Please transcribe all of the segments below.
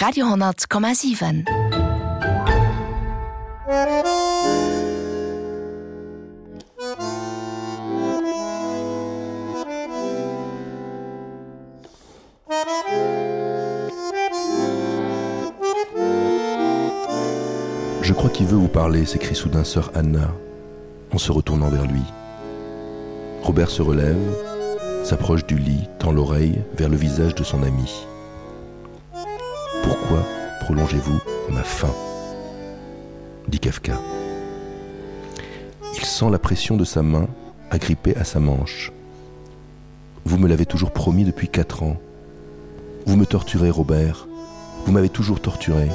Radio 100,7. Je crois qu'il veut vous parler, s'écrie soudain sœur Anna, en se retournant vers lui. Robert se relève, s'approche du lit, tend l'oreille vers le visage de son ami. « Pourquoi prolongez-vous ma faim ?» dit Kafka. Il sent la pression de sa main agrippée à sa manche. « Vous me l'avez toujours promis depuis 4 ans. Vous me torturez, Robert. Vous m'avez toujours torturé.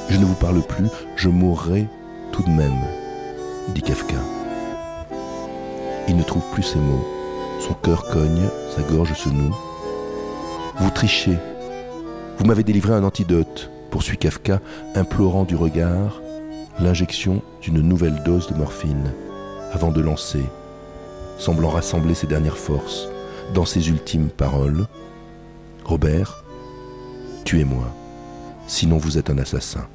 Je ne vous parle plus, je mourrai tout de même, dit Kafka. Il ne trouve plus ses mots. Son cœur cogne, sa gorge se noue. Vous trichez. Vous m'avez délivré un antidote, poursuit Kafka, implorant du regard l'injection d'une nouvelle dose de morphine, avant de lancer, semblant rassembler ses dernières forces, dans ses ultimes paroles. Robert, tuez-moi, sinon vous êtes un assassin.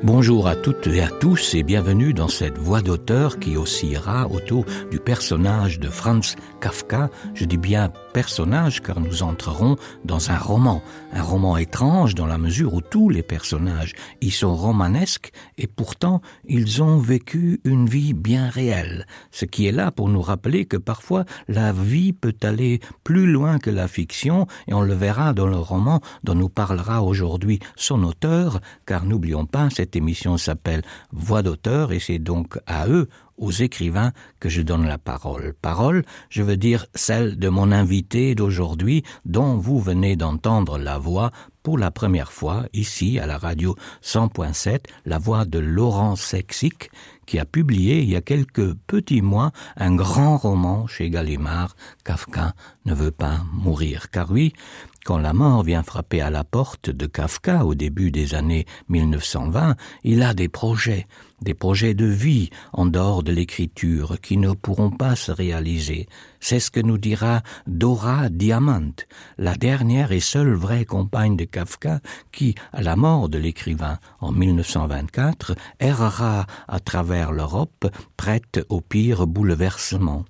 Bonjour à toutes et à tous et bienvenue dans cette voix d'auteur qui oscillera autour du personnage de Franz Kafka. Je dis bien personnage car nous entrerons dans un roman étrange dans la mesure où tous les personnages y sont romanesques et pourtant ils ont vécu une vie bien réelle. Ce qui est là pour nous rappeler que parfois la vie peut aller plus loin que la fiction et on le verra dans le roman dont nous parlera aujourd'hui son auteur car n'oublions pas cette émission s'appelle Voix d'auteur et c'est donc à eux, aux écrivains, que je donne la parole. Parole, je veux dire celle de mon invité d'aujourd'hui dont vous venez d'entendre la voix pour la première fois ici à la radio 100.7, la voix de Laurent Sexic qui a publié il y a quelques petits mois un grand roman chez Gallimard, Kafka ne veut pas mourir. Car oui, quand la mort vient frapper à la porte de Kafka au début des années 1920, il a des projets de vie en dehors de l'écriture qui ne pourront pas se réaliser. C'est ce que nous dira Dora Diamant, la dernière et seule vraie compagne de Kafka qui, à la mort de l'écrivain en 1924, errera à travers l'Europe, prête au pire bouleversement.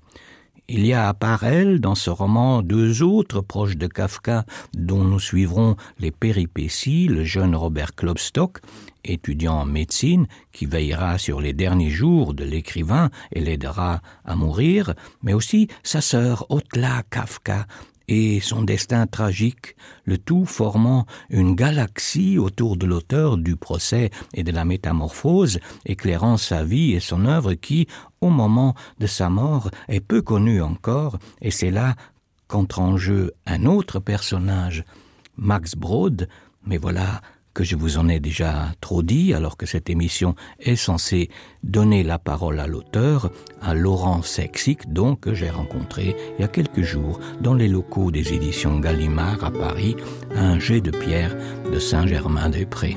Il y a à part elle, dans ce roman, 2 autres proches de Kafka dont nous suivrons les péripéties, le jeune Robert Klopstock, étudiant en médecine, qui veillera sur les derniers jours de l'écrivain et l'aidera à mourir, mais aussi sa sœur Otla Kafka, et son destin tragique, le tout formant une galaxie autour de l'auteur du procès et de la métamorphose, éclairant sa vie et son œuvre qui, au moment de sa mort, est peu connue encore, et c'est là qu'entre en jeu un autre personnage, Max Brod, mais voilà que je vous en ai déjà trop dit, alors que cette émission est censée donner la parole à l'auteur, à Laurent Sexic, donc que j'ai rencontré il y a quelques jours dans les locaux des éditions Gallimard à Paris, à un jet de pierre de Saint-Germain-des-Prés.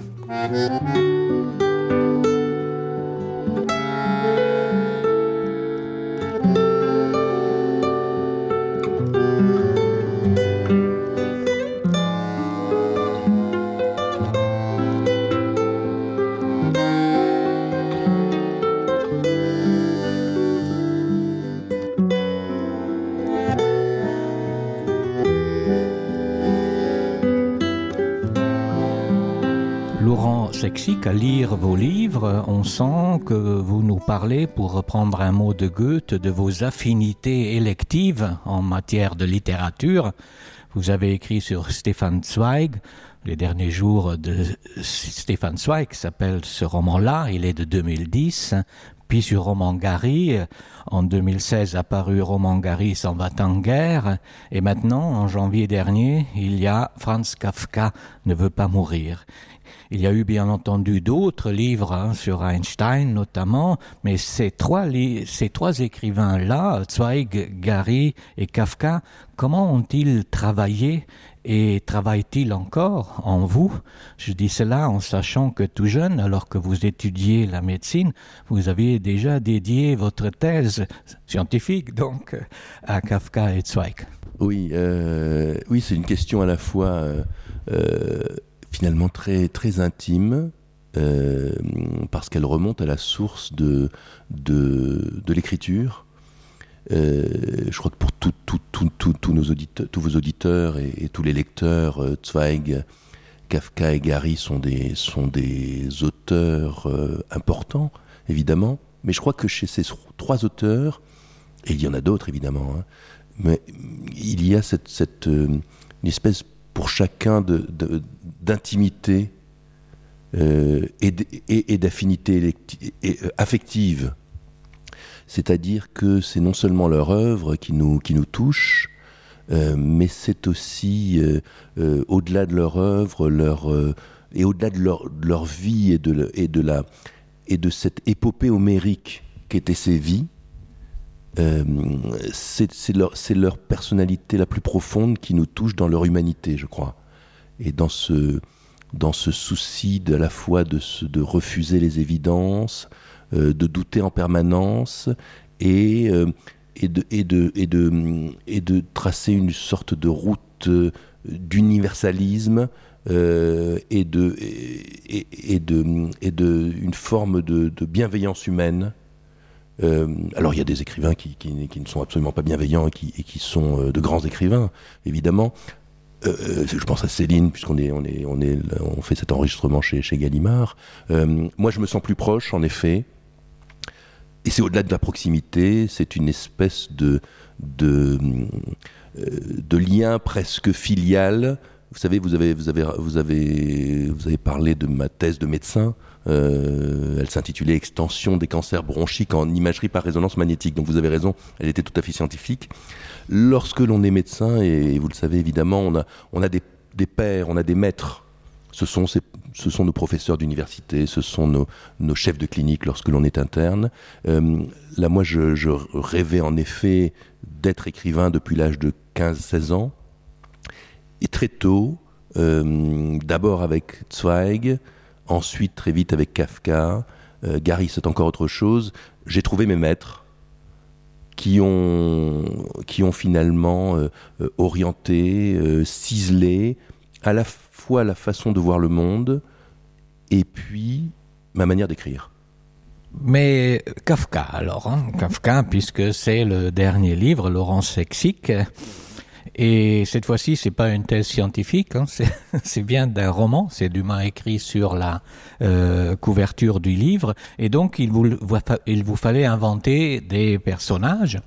Sexic, à lire vos livres, on sent que vous nous parlez, pour reprendre un mot de Goethe, de vos affinités électives en matière de littérature. Vous avez écrit sur Stefan Zweig, les derniers jours de Stefan Zweig s'appelle ce roman-là, il est de 2010, puis sur Roman Gary, en 2016 apparu Roman Gary s'en va en guerre, et maintenant, en janvier dernier, il y a Franz Kafka ne veut pas mourir. Il y a eu bien entendu d'autres livres sur Einstein notamment, mais ces trois écrivains-là, Zweig, Gary et Kafka, comment ont-ils travaillé Et travaille-t-il encore en vous? Je dis cela en sachant que tout jeune, alors que vous étudiez la médecine, vous aviez déjà dédié votre thèse scientifique donc à Kafka et Zweig. Oui, oui, c'est une question à la fois finalement très, très intime, parce qu'elle remonte à la source de l'écriture. Je crois que pour tous vos auditeurs et tous les lecteurs, Zweig, Kafka et Gary sont des auteurs importants, évidemment. Mais je crois que chez ces trois auteurs, et il y en a d'autres évidemment, hein, mais il y a une espèce pour chacun d'intimité et d'affinité affective. C'est-à-dire que c'est non seulement leur œuvre qui nous touche, mais c'est aussi, au-delà de leur œuvre, et au-delà de leur vie et de cette épopée homérique qu'étaient ces vies, c'est leur personnalité la plus profonde qui nous touche dans leur humanité, je crois. Et dans ce souci à la fois de refuser les évidences, de douter en permanence et de tracer une sorte de route d'universalisme et une forme de bienveillance humaine. Alors il y a des écrivains qui ne sont absolument pas bienveillants et qui sont de grands écrivains, évidemment. Je pense à Céline, puisqu'on fait cet enregistrement chez Gallimard. Moi, je me sens plus proche, en effet. Et c'est au-delà de la proximité, c'est une espèce de lien presque filial. Vous savez, vous avez parlé de ma thèse de médecin. Elle s'intitulait « Extension des cancers bronchiques en imagerie par résonance magnétique ». Donc vous avez raison, elle était tout à fait scientifique. Lorsque l'on est médecin, et vous le savez évidemment, on a des pairs, on a des maîtres. Ce sont nos professeurs d'université, ce sont nos chefs de clinique lorsque l'on est interne. Là, moi, je rêvais en effet d'être écrivain depuis l'âge de 15-16 ans. Et très tôt, d'abord avec Zweig, ensuite très vite avec Kafka, Gary c'est encore autre chose, j'ai trouvé mes maîtres qui ont finalement orienté, ciselé à la fois la façon de voir le monde et puis ma manière d'écrire. Mais Kafka alors, Kafka puisque c'est le dernier livre, Laurence Sexic. Et cette fois-ci, c'est pas une thèse scientifique, c'est bien d'un roman, c'est Dumas écrit sur la couverture du livre, et donc il vous fallait inventer des personnages.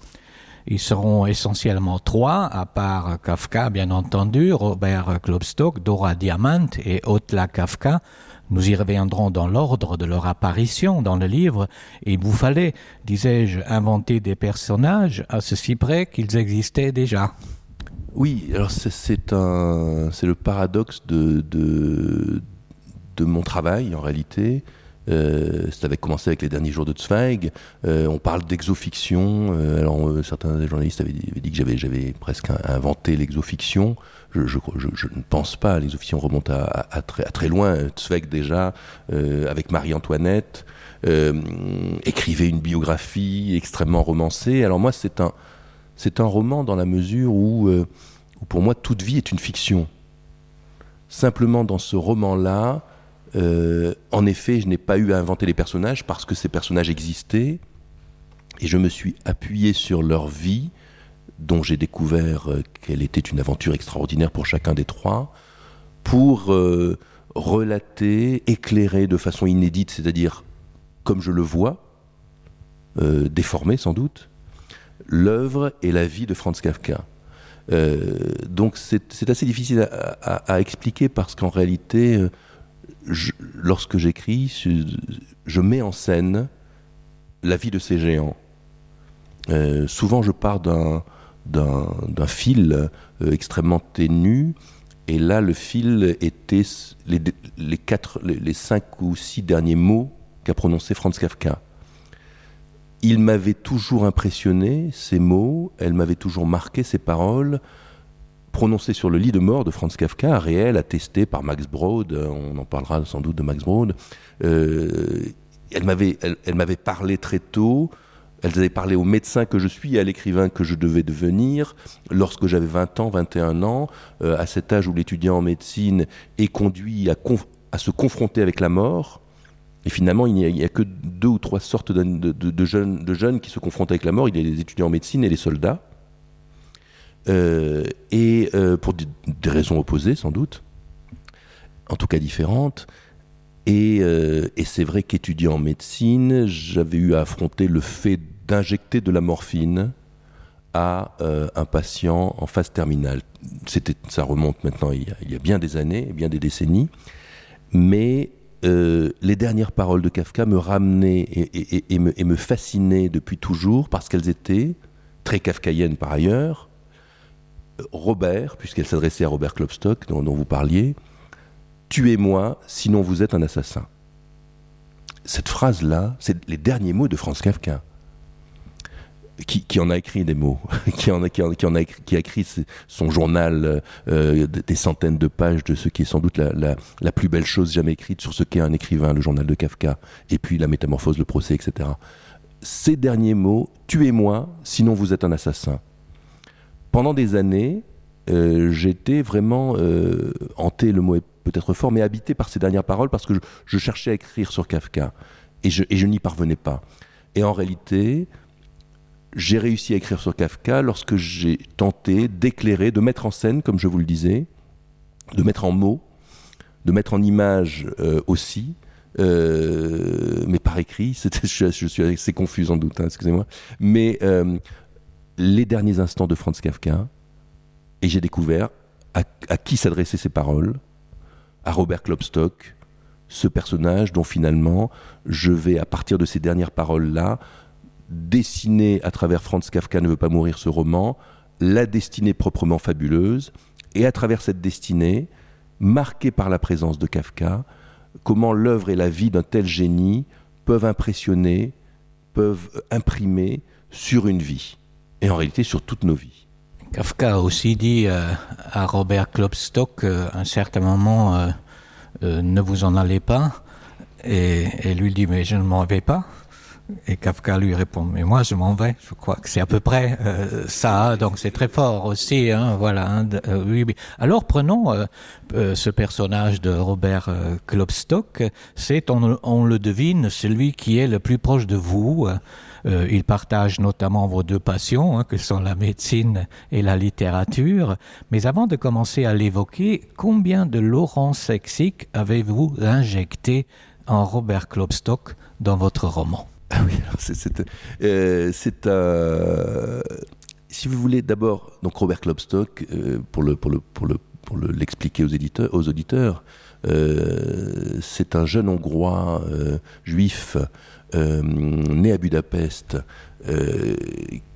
Ils seront essentiellement trois, à part Kafka, bien entendu, Robert Klopstock, Dora Diamant et Otla Kafka. Nous y reviendrons dans l'ordre de leur apparition dans le livre, et il vous fallait, disais-je, inventer des personnages à ceci près qu'ils existaient déjà. Oui, alors c'est le paradoxe de mon travail en réalité. Ça avait commencé avec les derniers jours de Zweig. On parle d'exofiction. Alors certains journalistes avaient dit que j'avais presque inventé l'exofiction. Je ne pense pas. L'exofiction remonte à très loin. Zweig déjà, avec Marie-Antoinette, écrivait une biographie extrêmement romancée. Alors moi, c'est un roman dans la mesure où pour moi, toute vie est une fiction. Simplement, dans ce roman-là, en effet, je n'ai pas eu à inventer les personnages parce que ces personnages existaient et je me suis appuyé sur leur vie, dont j'ai découvert qu'elle était une aventure extraordinaire pour chacun des trois, pour relater, éclairer de façon inédite, c'est-à-dire comme je le vois, déformé sans doute, l'œuvre et la vie de Franz Kafka. Donc c'est assez difficile à expliquer parce qu'en réalité, lorsque j'écris, je mets en scène la vie de ces géants. Souvent je pars d'un fil extrêmement ténu, et là le fil était les 5 ou 6 derniers mots qu'a prononcé Franz Kafka. Il m'avait toujours impressionné, ces mots, elle m'avait toujours marqué, ces paroles, prononcée sur le lit de mort de Franz Kafka, réelle, attestée par Max Brod, on en parlera sans doute de Max Brod. Elle m'avait parlé très tôt, elle avait parlé au médecin que je suis et à l'écrivain que je devais devenir lorsque j'avais 20 ans, 21 ans, à cet âge où l'étudiant en médecine est conduit à se confronter avec la mort. Et finalement, il n'y a que 2 ou 3 sortes de jeunes qui se confrontent avec la mort. Il y a les étudiants en médecine et les soldats. Pour des raisons opposées, sans doute. En tout cas différentes. Et c'est vrai qu'étudiant en médecine, j'avais eu à affronter le fait d'injecter de la morphine à un patient en phase terminale. Ça remonte maintenant il y a bien des années, bien des décennies. Mais les dernières paroles de Kafka me ramenaient et me fascinaient depuis toujours parce qu'elles étaient, très kafkaïennes par ailleurs, Robert, puisqu'elle s'adressait à Robert Klopstock, dont vous parliez, « Tuez-moi, sinon vous êtes un assassin ». Cette phrase-là, c'est les derniers mots de Franz Kafka, qui en a écrit des mots, qui a écrit son journal, des centaines de pages de ce qui est sans doute la plus belle chose jamais écrite sur ce qu'est un écrivain, le journal de Kafka, et puis la métamorphose, le procès, etc. Ces derniers mots, « Tuez-moi, sinon vous êtes un assassin ». Pendant des années, j'étais vraiment hanté, le mot est peut-être fort, mais habité par ces dernières paroles parce que je cherchais à écrire sur Kafka et je n'y parvenais pas. Et en réalité, j'ai réussi à écrire sur Kafka lorsque j'ai tenté d'éclairer, de mettre en scène, comme je vous le disais, de mettre en mots, de mettre en images aussi, mais par écrit. Je suis assez confus sans doute, hein, excusez-moi. Mais les derniers instants de Franz Kafka, et j'ai découvert à qui s'adressaient ces paroles, à Robert Klopstock, ce personnage dont finalement je vais, à partir de ces dernières paroles-là, dessiner à travers Franz Kafka ne veut pas mourir, ce roman, la destinée proprement fabuleuse, et à travers cette destinée, marquée par la présence de Kafka, comment l'œuvre et la vie d'un tel génie peuvent impressionner, peuvent imprimer sur une vie, et en réalité sur toutes nos vies. Kafka a aussi dit à Robert Klopstock à un certain moment ne vous en allez pas, et lui dit mais je ne m'en vais pas, et Kafka lui répond mais moi je m'en vais. Je crois que c'est à peu près ça, donc c'est très fort aussi, hein, voilà. Hein, oui. Alors prenons ce personnage de Robert Klopstock, c'est on le devine celui qui est le plus proche de vous. Il partage notamment vos 2 passions, hein, que sont la médecine et la littérature. Mais avant de commencer à l'évoquer, combien de Laurent Sexic avez-vous injecté en Robert Klopstock dans votre roman ? Ah oui, alors si vous voulez d'abord, donc Robert Klopstock, pour l'expliquer aux auditeurs, c'est un jeune Hongrois juif né à Budapest,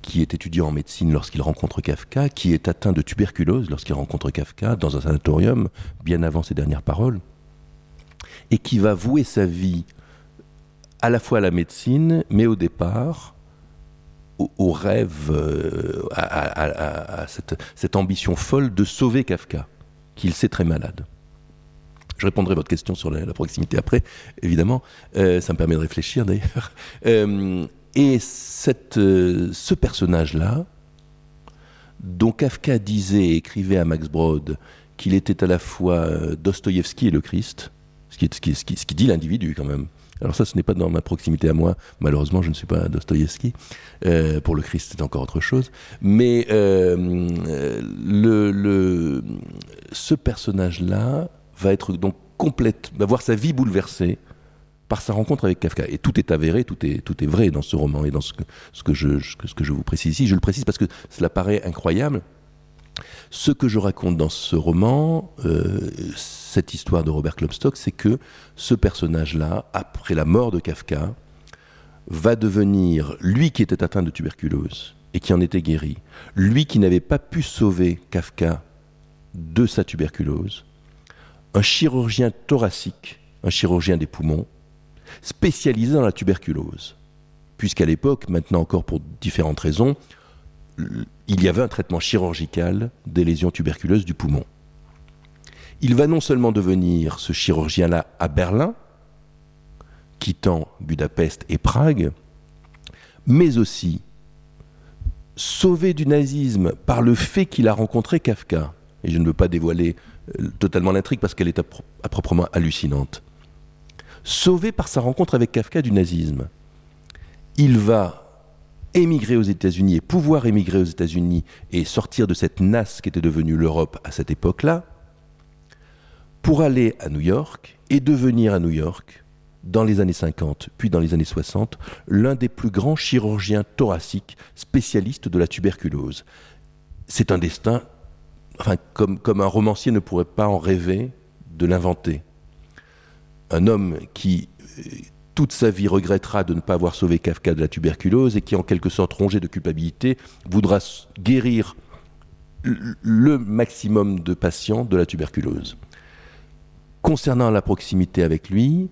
qui est étudiant en médecine lorsqu'il rencontre Kafka, qui est atteint de tuberculose lorsqu'il rencontre Kafka dans un sanatorium, bien avant ses dernières paroles, et qui va vouer sa vie à la fois à la médecine, mais au départ au rêve, à cette ambition folle de sauver Kafka, qu'il sait très malade. Je répondrai à votre question sur la proximité après, évidemment. Ça me permet de réfléchir, d'ailleurs. Et ce personnage-là, dont Kafka disait et écrivait à Max Brod qu'il était à la fois Dostoïevski et le Christ, ce qui dit l'individu, quand même. Alors ça, ce n'est pas dans ma proximité à moi. Malheureusement, je ne suis pas Dostoïevski. Pour le Christ, c'est encore autre chose. Mais ce personnage-là va être donc va voir sa vie bouleversée par sa rencontre avec Kafka. Et tout est avéré, tout est vrai dans ce roman et dans ce que je vous précise ici. Je le précise parce que cela paraît incroyable. Ce que je raconte dans ce roman, cette histoire de Robert Klopstock, c'est que ce personnage-là, après la mort de Kafka, va devenir, lui qui était atteint de tuberculose et qui en était guéri, lui qui n'avait pas pu sauver Kafka de sa tuberculose, un chirurgien thoracique, un chirurgien des poumons, spécialisé dans la tuberculose. Puisqu'à l'époque, maintenant encore pour différentes raisons, il y avait un traitement chirurgical des lésions tuberculeuses du poumon. Il va non seulement devenir ce chirurgien-là à Berlin, quittant Budapest et Prague, mais aussi sauvé du nazisme par le fait qu'il a rencontré Kafka. Et je ne veux pas dévoiler totalement l'intrigue parce qu'elle est à proprement hallucinante. Sauvé par sa rencontre avec Kafka du nazisme, il va émigrer aux États-Unis et pouvoir émigrer aux États-Unis et sortir de cette nasse qui était devenue l'Europe à cette époque-là, pour aller à New York et devenir à New York, dans les années 50, puis dans les années 60, l'un des plus grands chirurgiens thoraciques spécialistes de la tuberculose. C'est un destin, comme un romancier ne pourrait pas en rêver de l'inventer. Un homme qui, toute sa vie, regrettera de ne pas avoir sauvé Kafka de la tuberculose et qui, en quelque sorte, rongé de culpabilité, voudra guérir le maximum de patients de la tuberculose. Concernant la proximité avec lui,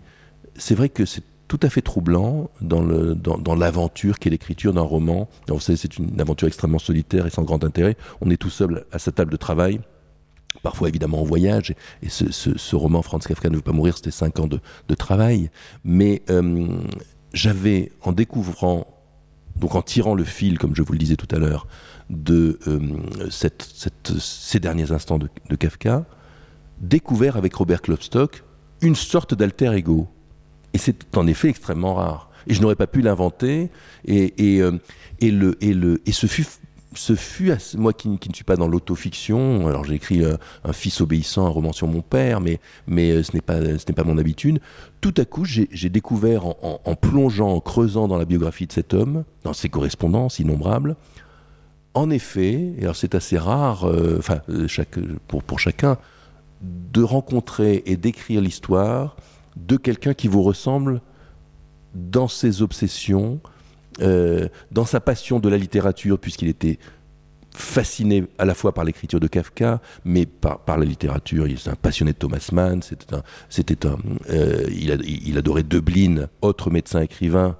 c'est vrai que c'est tout à fait troublant dans l'aventure qu'est l'écriture d'un roman. Alors, vous savez, c'est une aventure extrêmement solitaire et sans grand intérêt. On est tout seul à sa table de travail, parfois évidemment en voyage. Et ce roman, Franz Kafka ne veut pas mourir, c'était 5 ans de travail. Mais j'avais, en découvrant, donc en tirant le fil, comme je vous le disais tout à l'heure, de ces derniers instants de Kafka, découvert avec Robert Klopstock une sorte d'alter ego. Et c'est en effet extrêmement rare. Et je n'aurais pas pu l'inventer. Et ce fut moi qui ne suis pas dans l'autofiction. Alors j'ai écrit un fils obéissant, un roman sur mon père, mais ce n'est pas mon habitude. Tout à coup, j'ai découvert en plongeant, en creusant dans la biographie de cet homme, dans ses correspondances innombrables. En effet, et alors c'est assez rare, pour chacun, de rencontrer et d'écrire l'histoire de quelqu'un qui vous ressemble dans ses obsessions, dans sa passion de la littérature, puisqu'il était fasciné à la fois par l'écriture de Kafka, mais par la littérature. Il est un passionné de Thomas Mann. Il adorait Döblin, autre médecin-écrivain,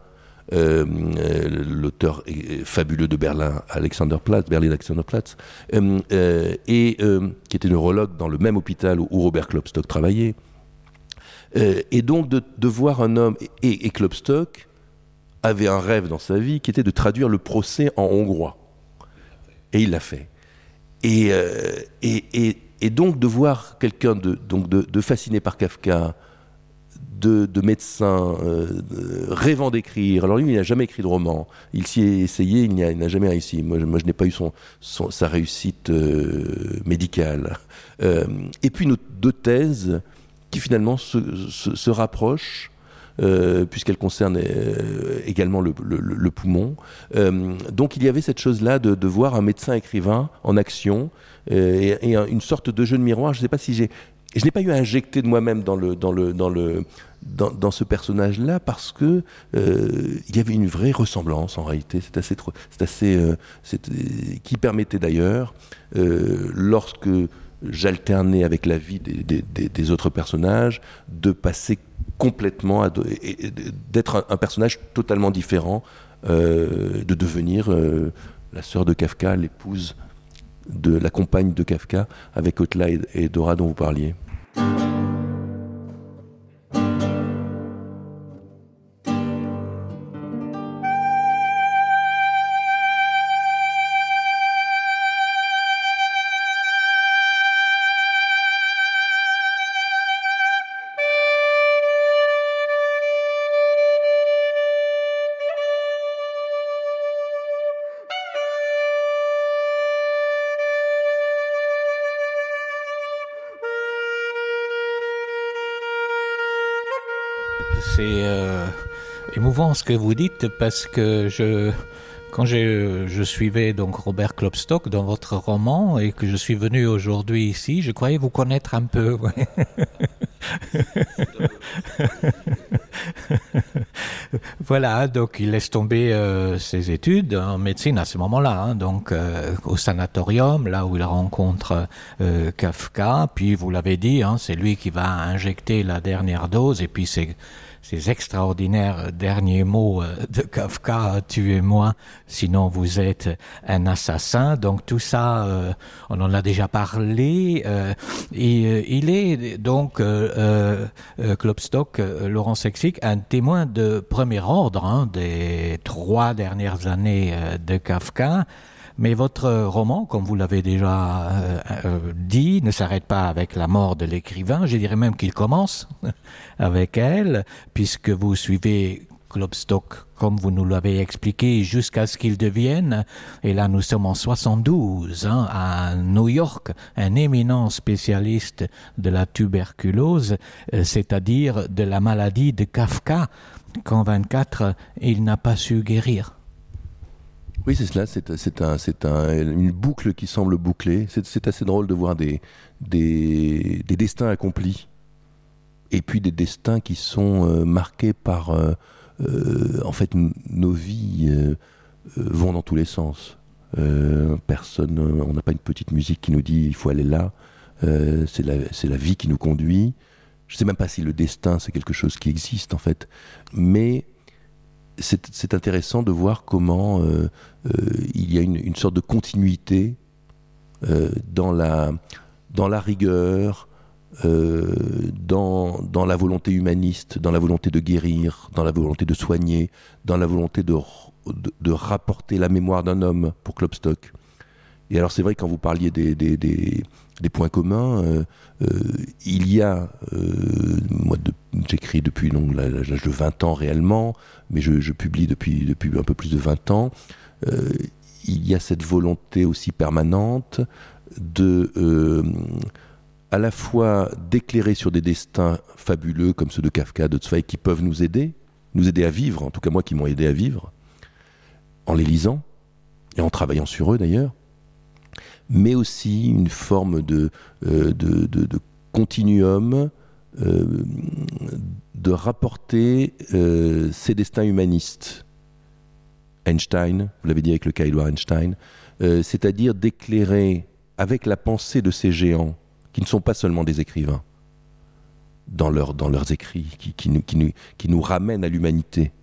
l'auteur fabuleux de Berlin Alexanderplatz, qui était neurologue dans le même hôpital où Robert Klopstock travaillait. Et donc de voir un homme, et Klopstock avait un rêve dans sa vie qui était de traduire le procès en hongrois. Et il l'a fait. Et donc de voir quelqu'un de fasciné par Kafka, de médecin, rêvant d'écrire. Alors lui, il n'a jamais écrit de roman. Il s'y est essayé, il n'a jamais réussi. Moi, je n'ai pas eu sa réussite médicale. Et puis nos 2 thèses qui finalement se rapprochent, puisqu'elles concernent également le poumon. Donc il y avait cette chose-là de voir un médecin écrivain en action, et une sorte de jeu de miroir. Je ne sais pas si je n'ai pas eu à injecter de moi-même dans ce personnage-là, parce que il y avait une vraie ressemblance en réalité. Qui permettait d'ailleurs, lorsque j'alternais avec la vie des autres personnages, de passer complètement d'être un personnage totalement différent, de devenir la sœur de Kafka, l'épouse de la compagne de Kafka, avec Otla et Dora dont vous parliez. C'est émouvant ce que vous dites, parce que quand je suivais donc Robert Klopstock dans votre roman et que je suis venu aujourd'hui ici, je croyais vous connaître un peu. Ouais. Voilà, donc il laisse tomber ses études en médecine à ce moment-là, donc au sanatorium, là où il rencontre Kafka. Puis vous l'avez dit, c'est lui qui va injecter la dernière dose, et puis c'est ces extraordinaires derniers mots de Kafka, tuez-moi, sinon vous êtes un assassin. Donc tout ça, on en a déjà parlé. Et il est donc, Klopstock, Laurent Sexic, un témoin de premier ordre des 3 dernières années de Kafka. Mais votre roman, comme vous l'avez déjà dit, ne s'arrête pas avec la mort de l'écrivain. Je dirais même qu'il commence avec elle, puisque vous suivez Klopstock, comme vous nous l'avez expliqué, jusqu'à ce qu'il devienne, et là nous sommes en 72, à New York, un éminent spécialiste de la tuberculose, c'est-à-dire de la maladie de Kafka, qu'en 24, il n'a pas su guérir. Oui, c'est cela, c'est une boucle qui semble bouclée. C'est assez drôle de voir des destins accomplis, et puis des destins qui sont marqués par... en fait, nos vies vont dans tous les sens. On n'a pas une petite musique qui nous dit « il faut aller là ». C'est la vie qui nous conduit. Je ne sais même pas si le destin, c'est quelque chose qui existe, en fait. Mais... C'est intéressant de voir comment il y a une sorte de continuité dans la rigueur, dans la volonté humaniste, dans la volonté de guérir, dans la volonté de soigner, dans la volonté de rapporter la mémoire d'un homme pour Klopstock. Et alors c'est vrai, quand vous parliez des points communs, il y a, moi j'écris depuis l'âge de 20 ans réellement, mais je publie depuis un peu plus de 20 ans, il y a cette volonté aussi permanente de à la fois d'éclairer sur des destins fabuleux comme ceux de Kafka, de Zweig, qui peuvent nous aider à vivre, en tout cas moi qui m'ont aidé à vivre, en les lisant et en travaillant sur eux d'ailleurs, mais aussi une forme de continuum, de rapporter ces destins humanistes. Einstein, vous l'avez dit avec le cas Edouard Einstein, c'est-à-dire d'éclairer avec la pensée de ces géants, qui ne sont pas seulement des écrivains, dans leurs écrits, qui nous ramènent à l'humanité,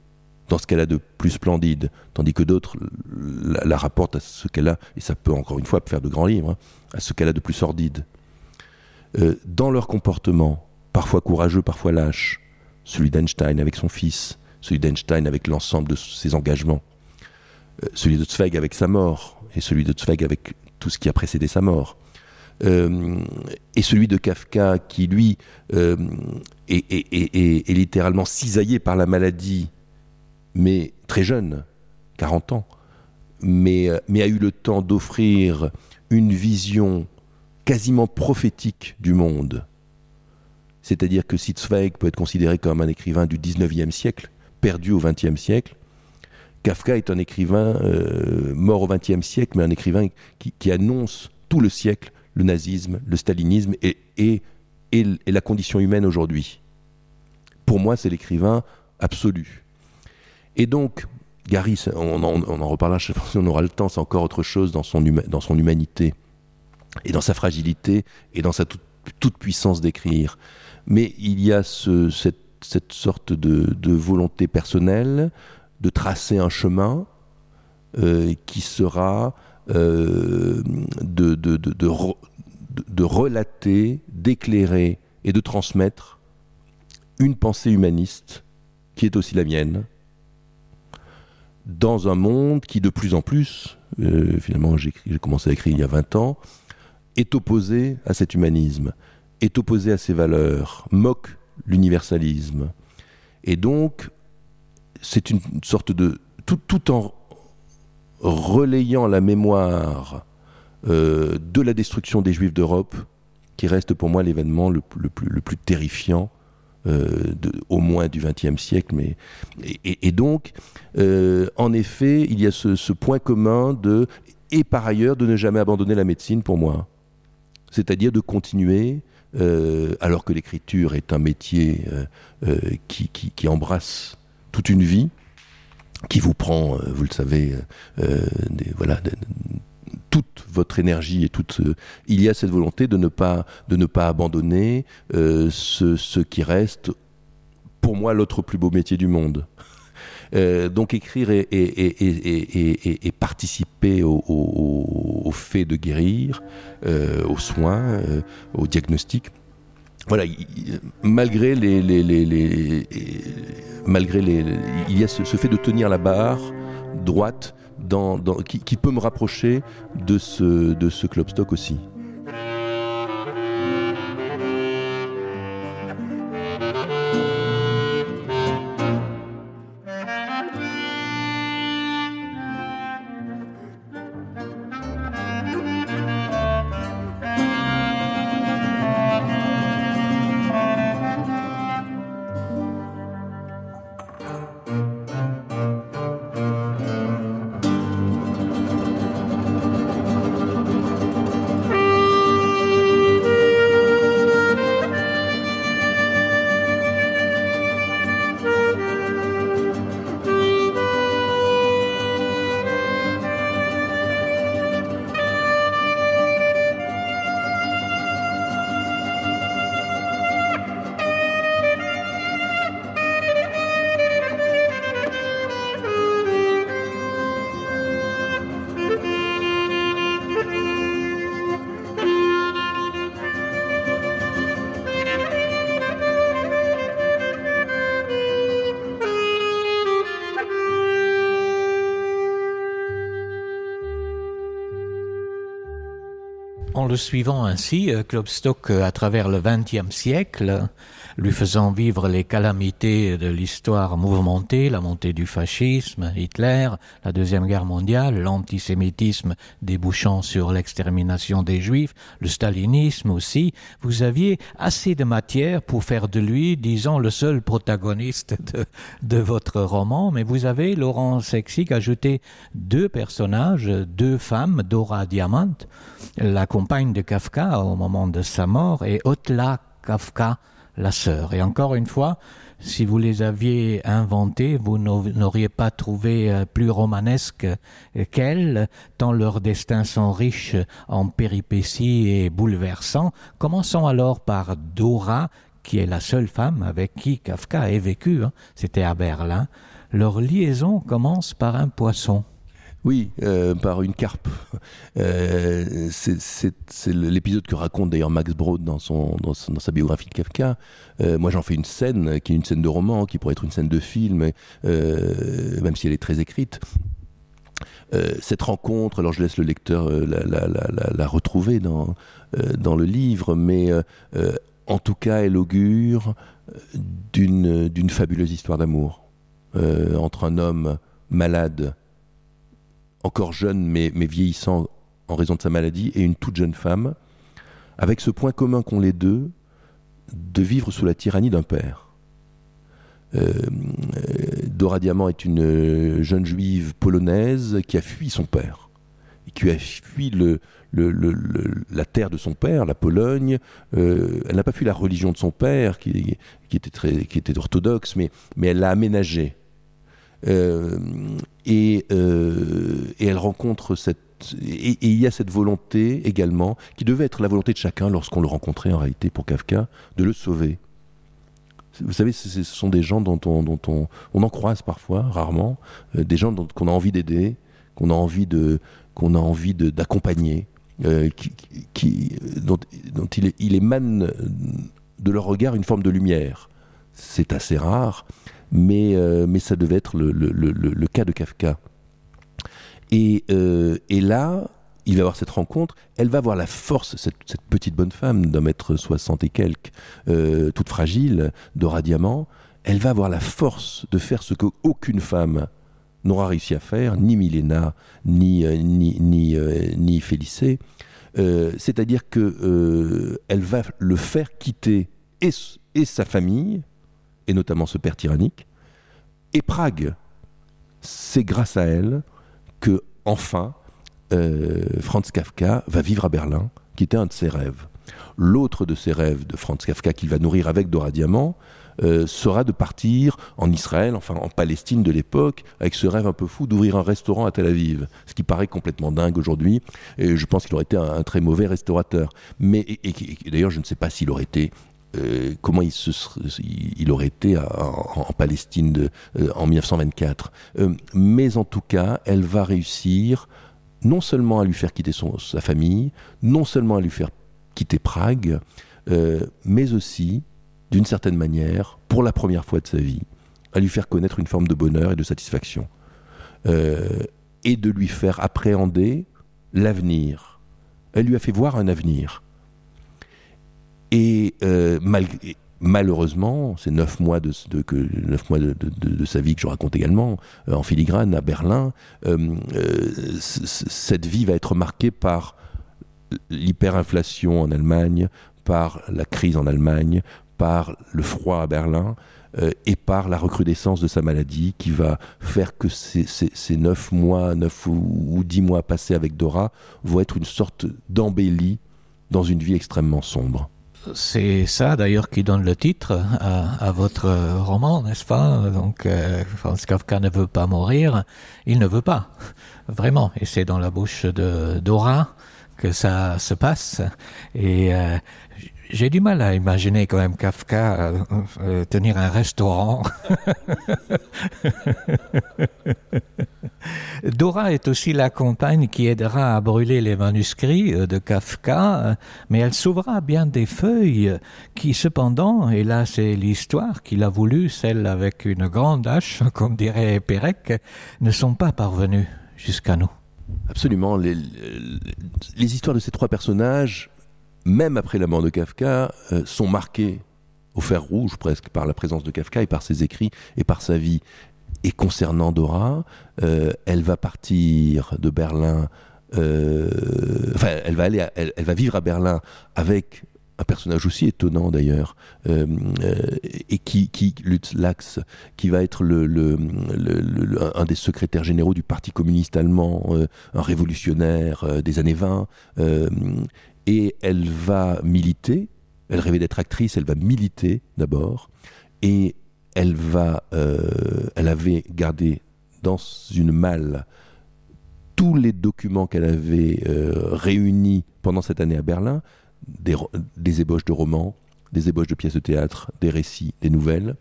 dans ce qu'elle a de plus splendide, tandis que d'autres la rapportent à ce qu'elle a, et ça peut encore une fois faire de grands livres, à ce qu'elle a de plus sordide. Dans leur comportement, parfois courageux, parfois lâche, celui d'Einstein avec son fils, celui d'Einstein avec l'ensemble de ses engagements, celui de Zweig avec sa mort, et celui de Zweig avec tout ce qui a précédé sa mort, et celui de Kafka qui, lui, est littéralement cisaillé par la maladie, mais très jeune, 40 ans, mais a eu le temps d'offrir une vision quasiment prophétique du monde. C'est-à-dire que si Zweig peut être considéré comme un écrivain du 19e siècle, perdu au 20e siècle, Kafka est un écrivain mort au 20e siècle, mais un écrivain qui annonce tout le siècle, le nazisme, le stalinisme et la condition humaine aujourd'hui. Pour moi, c'est l'écrivain absolu. Et donc, Gary, on en reparlera, je ne sais pas si on aura le temps, c'est encore autre chose dans son humanité, et dans sa fragilité, et dans sa toute puissance d'écrire. Mais il y a cette sorte de volonté personnelle de tracer un chemin qui sera de relater, d'éclairer et de transmettre une pensée humaniste qui est aussi la mienne, dans un monde qui de plus en plus, finalement j'ai commencé à écrire il y a 20 ans, est opposé à cet humanisme, est opposé à ces valeurs, moque l'universalisme. Et donc, c'est une sorte de... Tout en relayant la mémoire de la destruction des Juifs d'Europe, qui reste pour moi l'événement le plus terrifiant, au moins du XXe siècle. Et donc, en effet, il y a ce point commun et par ailleurs, de ne jamais abandonner la médecine pour moi. C'est-à-dire de continuer, alors que l'écriture est un métier qui embrasse toute une vie, qui vous prend, vous le savez, toute votre énergie et il y a cette volonté de ne pas abandonner ce qui reste pour moi l'autre plus beau métier du monde. Donc écrire et participer au fait de guérir, aux soins, au diagnostic. Voilà, malgré il y a ce fait de tenir la barre droite qui peut me rapprocher de ce Klopstock aussi. En le suivant ainsi, Klopstock, à travers le XXe siècle, lui faisant vivre les calamités de l'histoire mouvementée, la montée du fascisme, Hitler, la Deuxième Guerre mondiale, l'antisémitisme débouchant sur l'extermination des Juifs, le stalinisme aussi, vous aviez assez de matière pour faire de lui, disons, le seul protagoniste de votre roman, mais vous avez, Laurence Hecksig, ajouté 2 personnages, 2 femmes, Dora Diamant, la compagne de Kafka au moment de sa mort, et Otla Kafka, la sœur. Et encore une fois, si vous les aviez inventés, vous n'auriez pas trouvé plus romanesque qu'elles, tant leurs destins sont riches en péripéties et bouleversants. Commençons alors par Dora, qui est la seule femme avec qui Kafka ait vécu. C'était à Berlin. Leur liaison commence par un poisson. Oui, par une carpe. C'est l'épisode que raconte d'ailleurs Max Brod dans sa biographie de Kafka. Moi, j'en fais une scène qui est une scène de roman, qui pourrait être une scène de film, même si elle est très écrite. Cette rencontre, alors je laisse le lecteur la retrouver dans le livre, mais en tout cas, elle augure d'une fabuleuse histoire d'amour entre un homme malade, encore jeune mais vieillissant en raison de sa maladie, et une toute jeune femme, avec ce point commun qu'ont les deux, de vivre sous la tyrannie d'un père. Dora Diamant est une jeune juive polonaise qui a fui son père, qui a fui la terre de son père, la Pologne. Elle n'a pas fui la religion de son père, qui était orthodoxe, mais elle l'a aménagée. Et elle rencontre et il y a cette volonté également, qui devait être la volonté de chacun lorsqu'on le rencontrait en réalité pour Kafka, de le sauver. Vous savez, ce sont des gens dont on en croise parfois, rarement, des gens qu'on a envie d'aider, qu'on a envie d'accompagner, dont il émane de leur regard une forme de lumière. C'est assez rare. Mais ça devait être le cas de Kafka. Et là, il va avoir cette rencontre, elle va avoir la force, cette petite bonne femme d'1m60 et quelques, toute fragile, Dora Diamant, elle va avoir la force de faire ce qu'aucune femme n'aura réussi à faire, ni Milena, ni Félicée, c'est-à-dire que elle va le faire quitter et sa famille, et notamment ce père tyrannique, et Prague. C'est grâce à elle que, enfin, Franz Kafka va vivre à Berlin, qui était un de ses rêves. L'autre de ses rêves de Franz Kafka, qu'il va nourrir avec Dora Diamant, sera de partir en Israël, enfin en Palestine de l'époque, avec ce rêve un peu fou d'ouvrir un restaurant à Tel Aviv, ce qui paraît complètement dingue aujourd'hui, et je pense qu'il aurait été un très mauvais restaurateur. Mais et d'ailleurs, je ne sais pas s'il aurait été comment il aurait été en Palestine en 1924. Mais en tout cas, elle va réussir non seulement à lui faire quitter sa famille, non seulement à lui faire quitter Prague, mais aussi, d'une certaine manière, pour la première fois de sa vie, à lui faire connaître une forme de bonheur et de satisfaction. Et de lui faire appréhender l'avenir. Elle lui a fait voir un avenir. Et malheureusement, ces 9 mois de sa vie que je raconte également, en filigrane à Berlin, cette vie va être marquée par l'hyperinflation en Allemagne, par la crise en Allemagne, par le froid à Berlin, et par la recrudescence de sa maladie qui va faire que ces 9 ou 10 mois passés avec Dora vont être une sorte d'embellie dans une vie extrêmement sombre. C'est ça d'ailleurs qui donne le titre à votre roman, n'est-ce pas? Donc Franz Kafka ne veut pas mourir, il ne veut pas, vraiment. Et c'est dans la bouche de Dora que ça se passe. Et j'ai du mal à imaginer quand même Kafka tenir un restaurant. Dora est aussi la compagne qui aidera à brûler les manuscrits de Kafka, mais elle sauvera bien des feuilles qui cependant, et là c'est l'histoire qu'il a voulu, celle avec une grande hache, comme dirait Pérec, ne sont pas parvenues jusqu'à nous. Absolument. Les histoires de ces 3 personnages, même après la mort de Kafka, sont marquées au fer rouge presque par la présence de Kafka et par ses écrits et par sa vie. Et concernant Dora, elle va partir de Berlin, elle va vivre à Berlin avec un personnage aussi étonnant d'ailleurs, et Lutz Lachs, qui va être un des secrétaires généraux du Parti communiste allemand, un révolutionnaire des années 20, et elle va militer, elle rêvait d'être actrice, elle va militer d'abord, et elle avait gardé dans une malle tous les documents qu'elle avait réunis pendant cette année à Berlin, des ébauches de romans, des ébauches de pièces de théâtre, des récits, des nouvelles.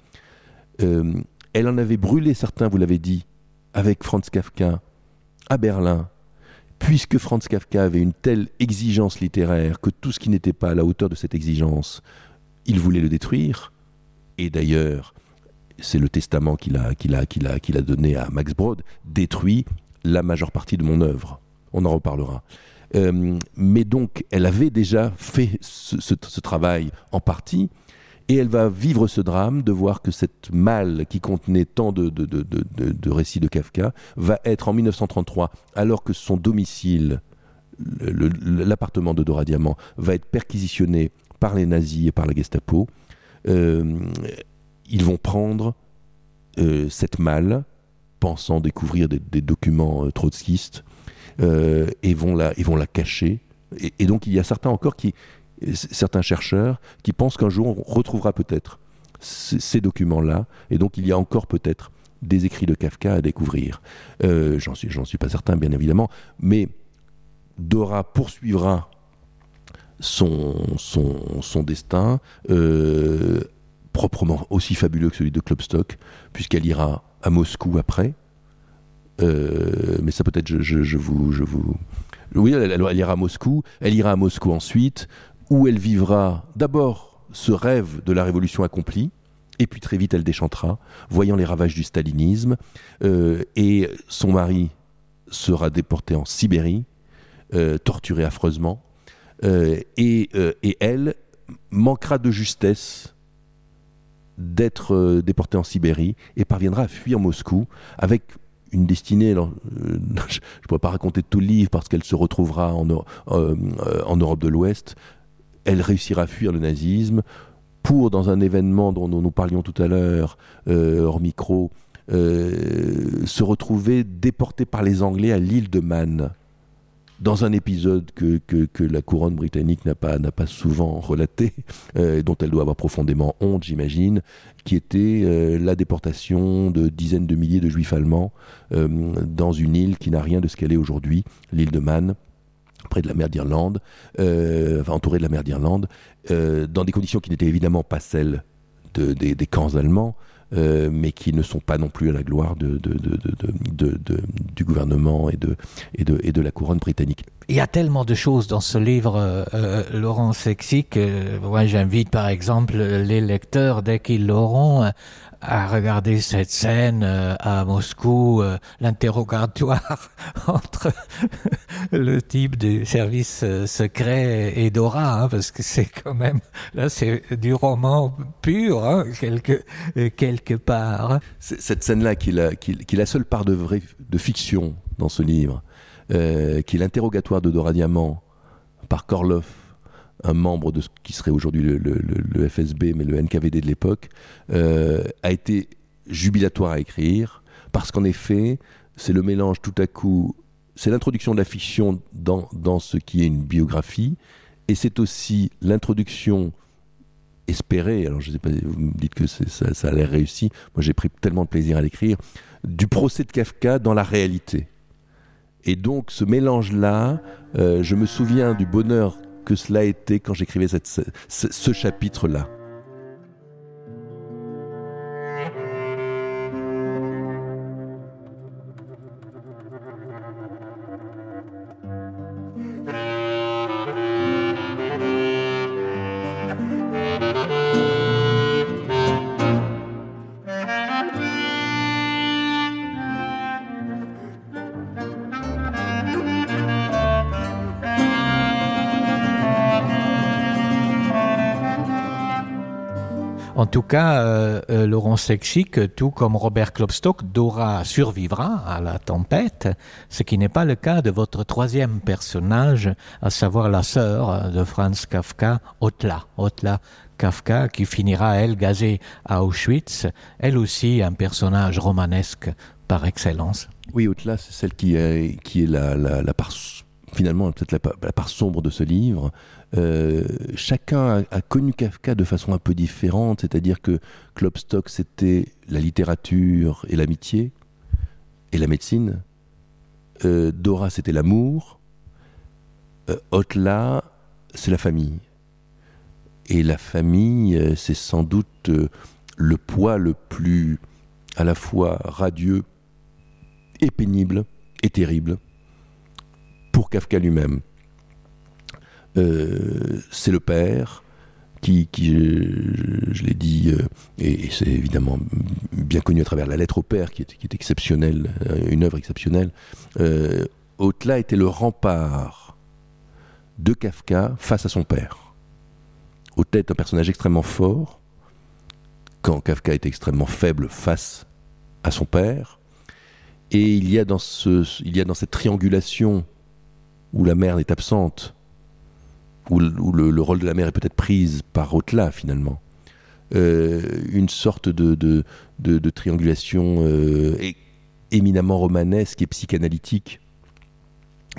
Elle en avait brûlé certains, vous l'avez dit, avec Franz Kafka à Berlin, puisque Franz Kafka avait une telle exigence littéraire que tout ce qui n'était pas à la hauteur de cette exigence, il voulait le détruire. Et d'ailleurs, c'est le testament qu'il a donné à Max Brod, détruit la majeure partie de mon œuvre. On en reparlera. Mais donc, elle avait déjà fait ce travail en partie, et elle va vivre ce drame de voir que cette malle qui contenait tant de récits de Kafka va être en 1933, alors que son domicile, l'appartement de Dora Diamant, va être perquisitionné par les nazis et par la Gestapo. Ils vont prendre cette malle, pensant découvrir des documents trotskistes, et vont la cacher. Et donc il y a certains chercheurs qui pensent qu'un jour on retrouvera peut-être ces documents-là, et donc il y a encore peut-être des écrits de Kafka à découvrir. J'en suis pas certain, bien évidemment, mais Dora poursuivra son destin, proprement aussi fabuleux que celui de Klopstock, puisqu'elle ira à Moscou après. Mais ça peut-être je vous... Oui, elle ira à Moscou. Elle ira à Moscou ensuite, où elle vivra d'abord ce rêve de la révolution accomplie, et puis très vite elle déchantera, voyant les ravages du stalinisme, et son mari sera déporté en Sibérie, torturé affreusement, et elle manquera de justesse d'être déportée en Sibérie et parviendra à fuir Moscou avec une destinée, alors, je ne pourrais pas raconter tout le livre parce qu'elle se retrouvera en Europe de l'Ouest. Elle réussira à fuir le nazisme pour, dans un événement dont nous parlions tout à l'heure, hors micro, se retrouver déportée par les Anglais à l'île de Man, dans un épisode que la couronne britannique n'a pas souvent relaté, dont elle doit avoir profondément honte, j'imagine, qui était la déportation de dizaines de milliers de juifs allemands dans une île qui n'a rien de ce qu'elle est aujourd'hui, l'île de Man, près de la mer d'Irlande, entouré de la mer d'Irlande, dans des conditions qui n'étaient évidemment pas celles des camps allemands, mais qui ne sont pas non plus à la gloire du gouvernement et de la couronne britannique. Il y a tellement de choses dans ce livre, Laurent Sexic, que moi j'invite par exemple les lecteurs, dès qu'ils l'auront, à regarder cette scène à Moscou, l'interrogatoire entre le type du service secret et Dora, parce que c'est quand même, là c'est du roman pur, quelque part. Cette scène-là, qui est la seule part de fiction dans ce livre, qui est l'interrogatoire de Dora Diamant par Korloff, un membre de ce qui serait aujourd'hui le FSB, mais le NKVD de l'époque, a été jubilatoire à écrire, parce qu'en effet, c'est le mélange tout à coup, c'est l'introduction de la fiction dans ce qui est une biographie, et c'est aussi l'introduction espérée, alors je ne sais pas, vous me dites que ça a l'air réussi, moi j'ai pris tellement de plaisir à l'écrire, du procès de Kafka dans la réalité. Et donc ce mélange-là, je me souviens du bonheur que cela a été quand j'écrivais ce chapitre-là. En tout cas, Laurent Sexic, tout comme Robert Klopstock, Dora survivra à la tempête, ce qui n'est pas le cas de votre troisième personnage, à savoir la sœur de Franz Kafka, Ottla Kafka, qui finira, elle, gazée à Auschwitz, elle aussi un personnage romanesque par excellence. Oui, Ottla, c'est celle qui est la part, finalement, peut-être la part sombre de ce livre. Chacun a connu Kafka de façon un peu différente, c'est-à-dire que Klopstock, c'était la littérature et l'amitié et la médecine. Dora, c'était l'amour. Ottla, c'est la famille. Et la famille, c'est sans doute le poids le plus à la fois radieux et pénible et terrible pour Kafka lui-même. C'est le père qui je l'ai dit, et c'est évidemment bien connu à travers la lettre au père, qui est exceptionnelle, une œuvre exceptionnelle. Ottla était le rempart de Kafka face à son père. Ottla est un personnage extrêmement fort, quand Kafka est extrêmement faible face à son père, et il y a dans cette triangulation où la mère est absente, où le rôle de la mère est peut-être prise par Ottla finalement, une sorte de triangulation éminemment romanesque et psychanalytique.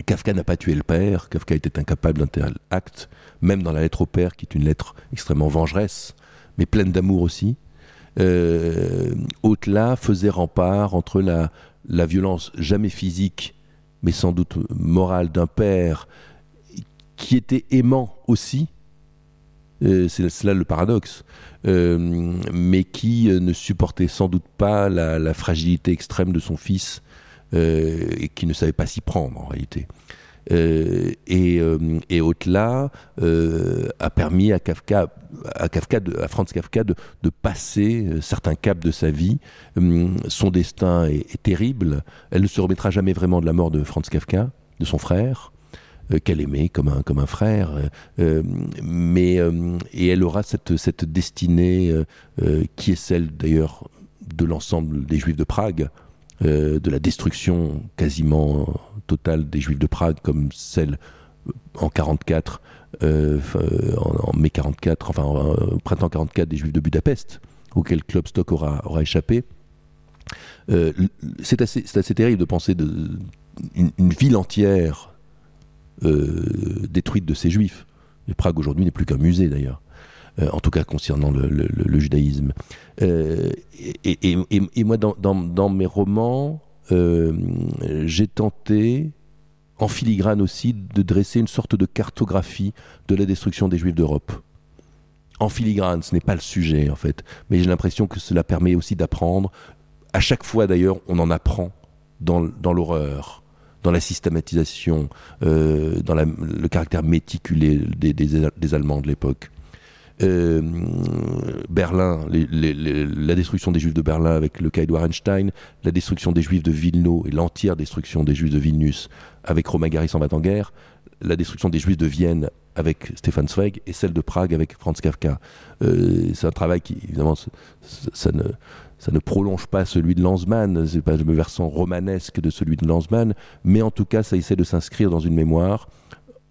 Kafka n'a pas tué le père, Kafka était incapable d'un tel acte, même dans la lettre au père, qui est une lettre extrêmement vengeresse, mais pleine d'amour aussi. Ottla faisait rempart entre la violence jamais physique, mais sans doute morale d'un père, qui était aimant aussi, c'est cela le paradoxe, mais qui ne supportait sans doute pas la fragilité extrême de son fils, et qui ne savait pas s'y prendre en réalité. Et Ottla a permis à Franz Kafka de passer certains caps de sa vie. Son destin est terrible. Elle ne se remettra jamais vraiment de la mort de Franz Kafka, de son frère, qu'elle aimait comme un frère, et elle aura cette destinée qui est celle d'ailleurs de l'ensemble des Juifs de Prague, de la destruction quasiment totale des Juifs de Prague, comme celle en 44, en mai 44, enfin au printemps 44 des Juifs de Budapest, auquel Klopstock aura échappé. C'est assez terrible de penser une ville entière détruite de ces Juifs. Et Prague aujourd'hui n'est plus qu'un musée d'ailleurs, en tout cas concernant le judaïsme. Et moi, dans mes romans, j'ai tenté en filigrane aussi, de dresser une sorte de cartographie de la destruction des Juifs d'Europe. En filigrane, ce n'est pas le sujet en fait, mais j'ai l'impression que cela permet aussi d'apprendre. À chaque fois d'ailleurs, on en apprend dans l'horreur, dans la systématisation, dans le caractère méticulé des Allemands de l'époque. Berlin, la destruction des Juifs de Berlin avec le cas Edouard Einstein, la destruction des Juifs de Wilno et l'entière destruction des Juifs de Vilnius avec Romain Gary s'en va en guerre, la destruction des Juifs de Vienne avec Stefan Zweig et celle de Prague avec Franz Kafka. C'est un travail qui, évidemment, ça ne prolonge pas celui de Lanzmann, c'est pas le versant romanesque de celui de Lanzmann, mais en tout cas, ça essaie de s'inscrire dans une mémoire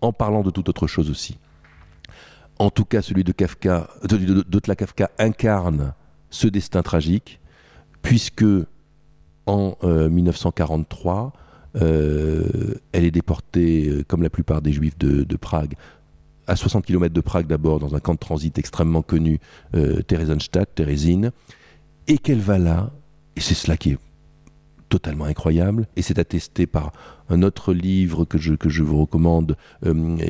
en parlant de toute autre chose aussi. En tout cas, celui de Kafka, d'Ottla Kafka incarne ce destin tragique, puisque en 1943, elle est déportée, comme la plupart des Juifs de Prague, à 60 km de Prague d'abord, dans un camp de transit extrêmement connu, Theresienstadt, Térésine, et qu'elle va là, et c'est cela qui est totalement incroyable, et c'est attesté par un autre livre que je vous recommande,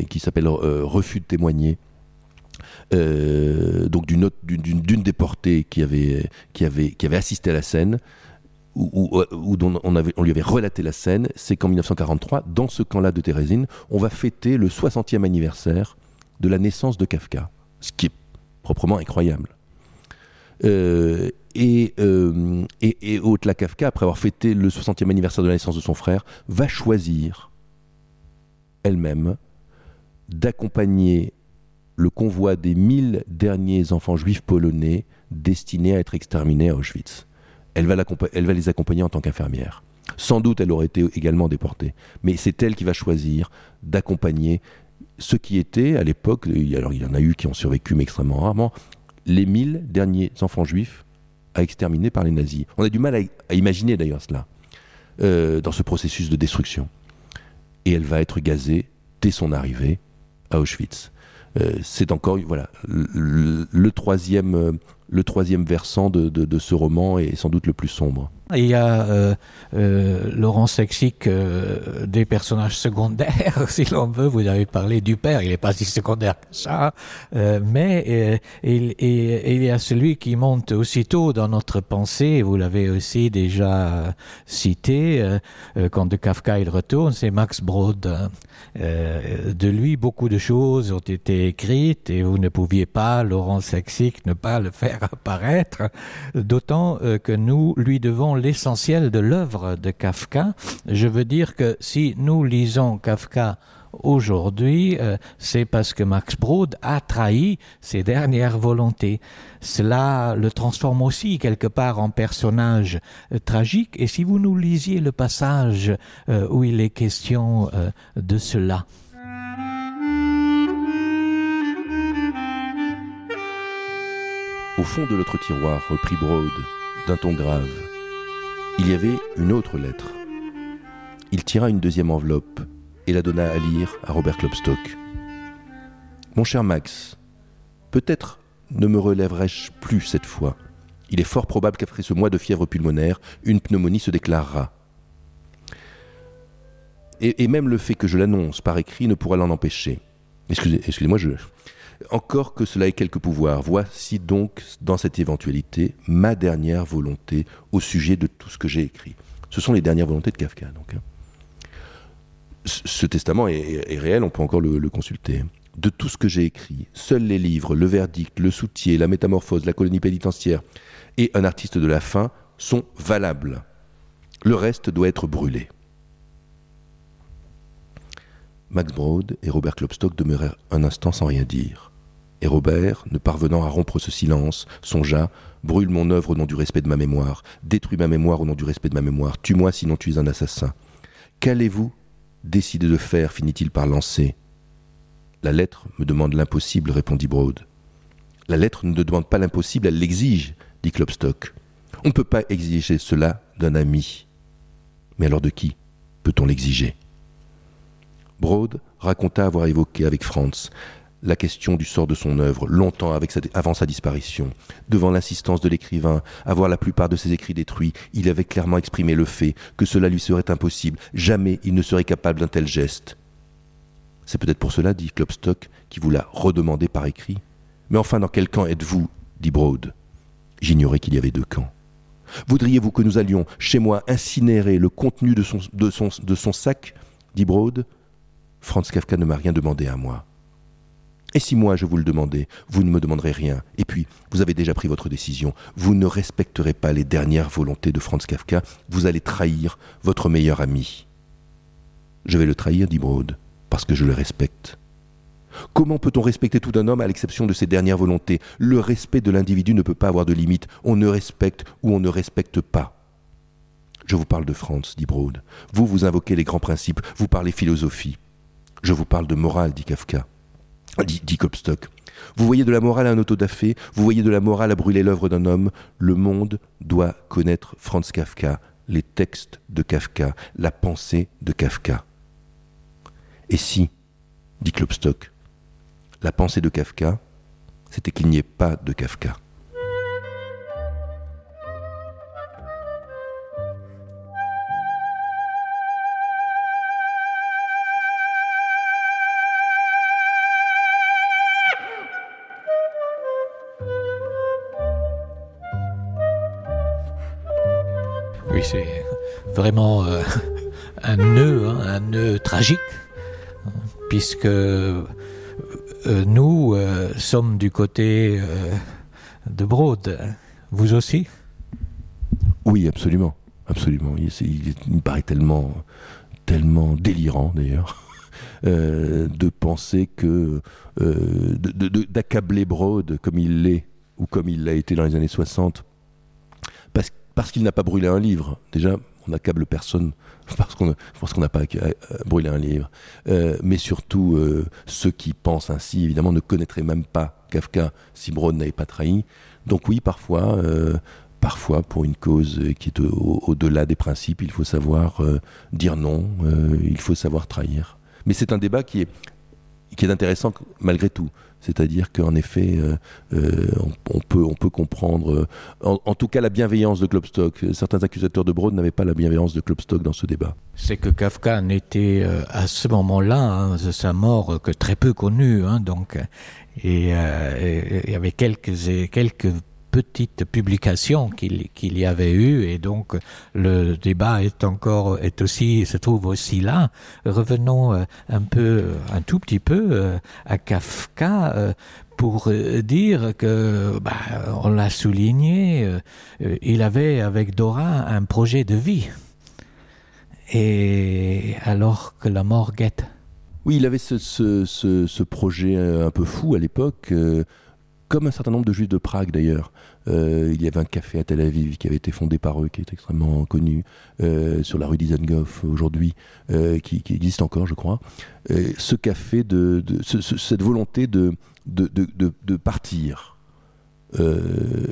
qui s'appelle Refus de témoigner, donc d'une déportée qui avait assisté à la scène, où dont on lui avait relaté la scène. C'est qu'en 1943, dans ce camp-là de Térésine, on va fêter le 60e anniversaire de la naissance de Kafka, ce qui est proprement incroyable. Et Ottla Kafka, après avoir fêté le 60e anniversaire de la naissance de son frère, va choisir elle-même d'accompagner le convoi des 1000 derniers enfants juifs polonais destinés à être exterminés à Auschwitz. Elle va les accompagner en tant qu'infirmière. Sans doute, elle aurait été également déportée. Mais c'est elle qui va choisir d'accompagner ceux qui étaient, à l'époque, alors il y en a eu qui ont survécu, mais extrêmement rarement, les 1000 derniers enfants juifs à exterminer par les nazis. On a du mal à imaginer d'ailleurs cela, dans ce processus de destruction. Et elle va être gazée dès son arrivée à Auschwitz. C'est encore le troisième versant de ce roman est sans doute le plus sombre. Il y a Laurence Lexic, des personnages secondaires, si l'on veut. Vous avez parlé du père, il n'est pas si secondaire que ça, mais il y a celui qui monte aussitôt dans notre pensée, vous l'avez aussi déjà cité, quand de Kafka il retourne, c'est Max Brod. De lui, beaucoup de choses ont été écrites et vous ne pouviez pas, Laurence Lexic, ne pas le faire apparaître, d'autant que nous lui devons l'essentiel de l'œuvre de Kafka. Je veux dire que si nous lisons Kafka aujourd'hui, c'est parce que Max Brod a trahi ses dernières volontés. Cela le transforme aussi quelque part en personnage tragique. Et si vous nous lisiez le passage où il est question de cela. Au fond de l'autre tiroir, reprit Brod, d'un ton grave, il y avait une autre lettre. Il tira une deuxième enveloppe et la donna à lire à Robert Klopstock. « Mon cher Max, peut-être ne me relèverai-je plus cette fois. Il est fort probable qu'après ce mois de fièvre pulmonaire, une pneumonie se déclarera. Et même le fait que je l'annonce par écrit ne pourra l'en empêcher. Excusez-moi, encore que cela ait quelque pouvoir. Voici donc, dans cette éventualité, ma dernière volonté au sujet de tout ce que j'ai écrit. » Ce sont les dernières volontés de Kafka, donc. Ce testament est réel, on peut encore le consulter. « De tout ce que j'ai écrit, seuls les livres, le verdict, le soutier, la métamorphose, la colonie pénitentiaire et un artiste de la fin sont valables. Le reste doit être brûlé. » Max Brod et Robert Klopstock demeurèrent un instant sans rien dire. Et Robert, ne parvenant à rompre ce silence, songea « Brûle mon œuvre au nom du respect de ma mémoire, détruis ma mémoire au nom du respect de ma mémoire, tue-moi sinon tu es un assassin. Qu'allez-vous décider de faire ?» finit-il par lancer. « La lettre me demande l'impossible, » répondit Brod. « La lettre ne demande pas l'impossible, elle l'exige, » dit Klopstock. « On ne peut pas exiger cela d'un ami. Mais alors de qui peut-on l'exiger ?» Brod raconta avoir évoqué avec Franz la question du sort de son œuvre, longtemps avant sa disparition. Devant l'insistance de l'écrivain à voir la plupart de ses écrits détruits, il avait clairement exprimé le fait que cela lui serait impossible. Jamais il ne serait capable d'un tel geste. C'est peut-être pour cela, dit Klopstock, qui vous l'a redemandé par écrit. Mais enfin, dans quel camp êtes-vous, dit Broad. J'ignorais qu'il y avait 2 camps. Voudriez-vous que nous allions, chez moi, incinérer le contenu de son sac, dit Broad. Franz Kafka ne m'a rien demandé à moi. Et si moi je vous le demandais, vous ne me demanderez rien. Et puis, vous avez déjà pris votre décision. Vous ne respecterez pas les dernières volontés de Franz Kafka. Vous allez trahir votre meilleur ami. Je vais le trahir, dit Broad, parce que je le respecte. Comment peut-on respecter tout un homme à l'exception de ses dernières volontés ? Le respect de l'individu ne peut pas avoir de limite. On ne respecte ou on ne respecte pas. Je vous parle de Franz, dit Broad. Vous invoquez les grands principes, vous parlez philosophie. Je vous parle de morale, dit Kafka. Dit Klopstock. Vous voyez de la morale à un autodafé, vous voyez de la morale à brûler l'œuvre d'un homme. Le monde doit connaître Franz Kafka, les textes de Kafka, la pensée de Kafka. Et si, dit Klopstock, la pensée de Kafka, c'était qu'il n'y ait pas de Kafka. Oui, c'est vraiment un nœud tragique, puisque nous sommes du côté de Broad. Vous aussi ? Oui, absolument. Absolument. Il me paraît tellement délirant, d'ailleurs, de penser que... d'accabler Broad comme il l'est, ou comme il l'a été dans les années 60, parce qu'il n'a pas brûlé un livre. Déjà, on n'accable personne parce qu'on n'a pas brûlé un livre. Mais surtout, ceux qui pensent ainsi, évidemment, ne connaîtraient même pas Kafka si Broad n'avait pas trahi. Donc oui, parfois, pour une cause qui est au-delà des principes, il faut savoir dire non, il faut savoir trahir. Mais c'est un débat qui est intéressant malgré tout. C'est-à-dire qu'en effet, on peut comprendre, en tout cas, la bienveillance de Klopstock. Certains accusateurs de Broad n'avaient pas la bienveillance de Klopstock dans ce débat. C'est que Kafka n'était à ce moment-là, de sa mort, que très peu connu. Donc, et il y avait quelques petites publications qu'il y avait eu, et donc le débat se trouve aussi là. Revenons un tout petit peu à Kafka pour dire que, on l'a souligné, il avait avec Dora un projet de vie, et alors que la mort guette. Oui, il avait ce projet un peu fou à l'époque. Comme un certain nombre de juifs de Prague d'ailleurs. Il y avait un café à Tel Aviv qui avait été fondé par eux, qui est extrêmement connu, sur la rue Dizengoff aujourd'hui, qui existe encore, je crois. Ce café, cette volonté de partir. Il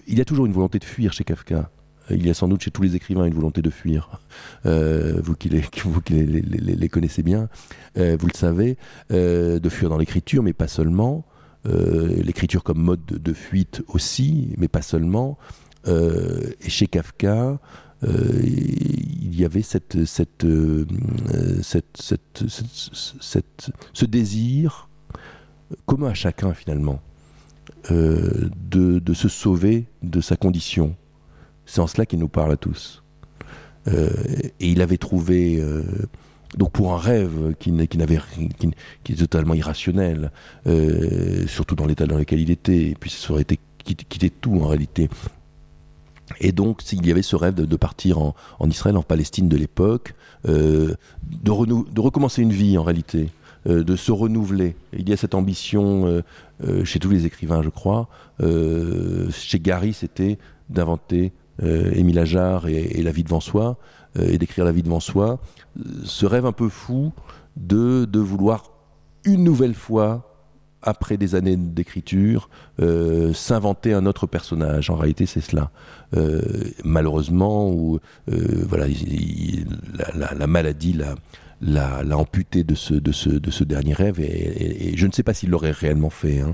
y a toujours une volonté de fuir chez Kafka. Il y a sans doute chez tous les écrivains une volonté de fuir. Vous qui les connaissez bien, vous le savez, de fuir dans l'écriture, mais pas seulement. L'écriture comme mode de fuite aussi, mais pas seulement. Et chez Kafka, il y avait ce désir commun à chacun finalement de se sauver de sa condition. C'est en cela qu'il nous parle à tous. Et il avait trouvé... Donc pour un rêve qui est totalement irrationnel, surtout dans l'état dans lequel il était, et puis ça aurait été quitter tout en réalité. Et donc il y avait ce rêve de partir en Israël, en Palestine de l'époque, de recommencer une vie en réalité, de se renouveler. Il y a cette ambition chez tous les écrivains, je crois. Chez Gary, c'était d'inventer Émile Ajar et La vie devant soi, et d'écrire La vie devant soi. Ce rêve un peu fou de vouloir une nouvelle fois, après des années d'écriture, s'inventer un autre personnage. En réalité, c'est cela. Malheureusement, la maladie l'a amputé de ce dernier rêve, et je ne sais pas s'il l'aurait réellement fait. Hein.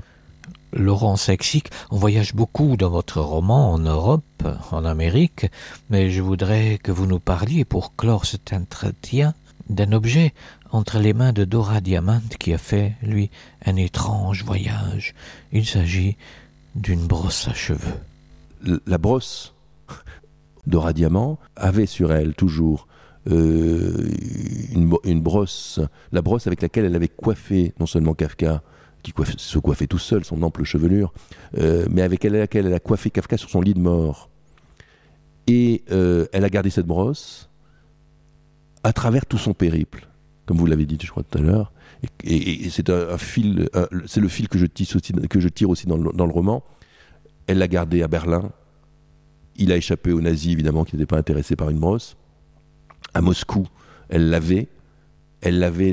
Laurent Sexic, on voyage beaucoup dans votre roman en Europe, en Amérique, mais je voudrais que vous nous parliez, pour clore cet entretien, d'un objet entre les mains de Dora Diamant qui a fait, lui, un étrange voyage. Il s'agit d'une brosse à cheveux. La brosse, Dora Diamant avait sur elle toujours une brosse, la brosse avec laquelle elle avait coiffé non seulement Kafka, qui se coiffait tout seul, son ample chevelure, mais avec laquelle elle a coiffé Kafka sur son lit de mort. Et elle a gardé cette brosse à travers tout son périple, comme vous l'avez dit, je crois, tout à l'heure. Et c'est un fil, c'est le fil que je tire aussi dans le roman. Elle l'a gardé à Berlin. Il a échappé aux nazis, évidemment, qui n'étaient pas intéressés par une brosse. À Moscou, elle l'avait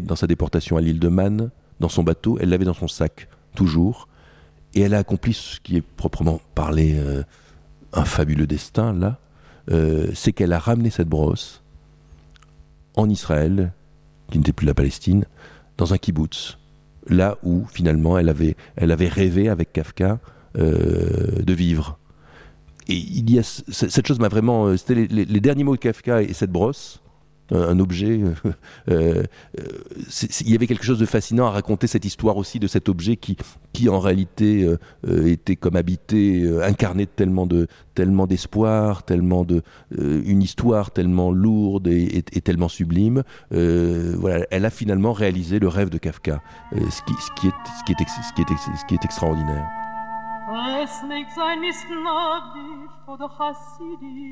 dans sa déportation à l'île de Man, dans son bateau, elle l'avait dans son sac, toujours. Et elle a accompli ce qui est proprement parlé un fabuleux destin, là. C'est qu'elle a ramené cette brosse en Israël, qui n'était plus la Palestine, dans un kibbutz, là où, finalement, elle avait rêvé avec Kafka de vivre. Et il y a cette chose m'a vraiment... C'était les derniers mots de Kafka et cette brosse, un objet. Il y avait quelque chose de fascinant à raconter cette histoire aussi de cet objet qui en réalité était comme habité, incarné de tellement d'espoir, une histoire tellement lourde et tellement sublime. Voilà, elle a finalement réalisé le rêve de Kafka, ce qui est extraordinaire. Es nicht sein misgnadisch oder chassidisch,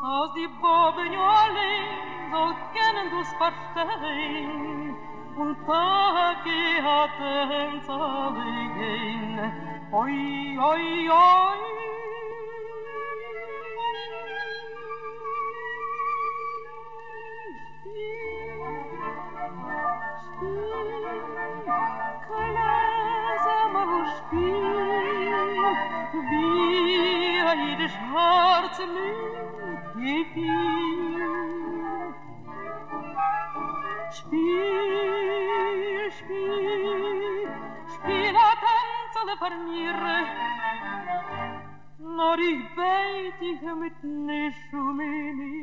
aus die Boben allein soll kennen du's verstehen, und Tage hatten zerlegen, oi, oi, oi. Jedes Herz mit gefiel. Spiel, spiel, spiel a tanzele vermiere, nur ich beit dich mit Nischumini.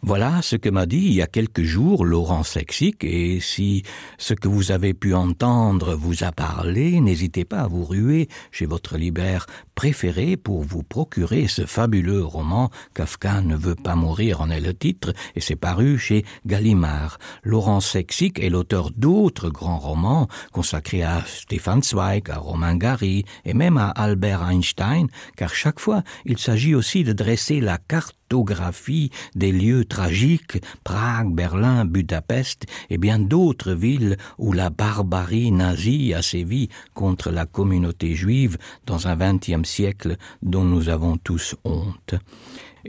Voilà ce que m'a dit il y a quelques jours Laurent Sexic, et si ce que vous avez pu entendre vous a parlé, n'hésitez pas à vous ruer chez votre libraire préféré pour vous procurer ce fabuleux roman « Kafka ne veut pas mourir » en est le titre, et c'est paru chez Gallimard. Laurent Sexic est l'auteur d'autres grands romans consacrés à Stefan Zweig, à Romain Gary et même à Albert Einstein, car chaque fois il s'agit aussi de dresser la cartographie des lieux tragiques, Prague, Berlin, Budapest et bien d'autres villes où la barbarie nazie a sévi contre la communauté juive dans un XXe siècle dont nous avons tous honte.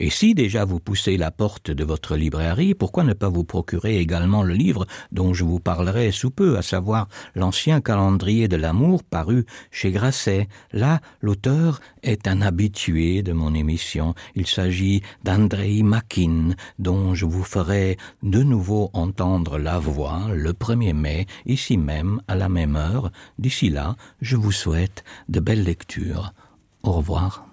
Et si déjà vous poussez la porte de votre librairie, pourquoi ne pas vous procurer également le livre dont je vous parlerai sous peu, à savoir l'ancien calendrier de l'amour paru chez Grasset. Là, l'auteur est un habitué de mon émission. Il s'agit d'Andrei Makin, dont je vous ferai de nouveau entendre la voix le 1er mai, ici même, à la même heure. D'ici là, je vous souhaite de belles lectures. Au revoir.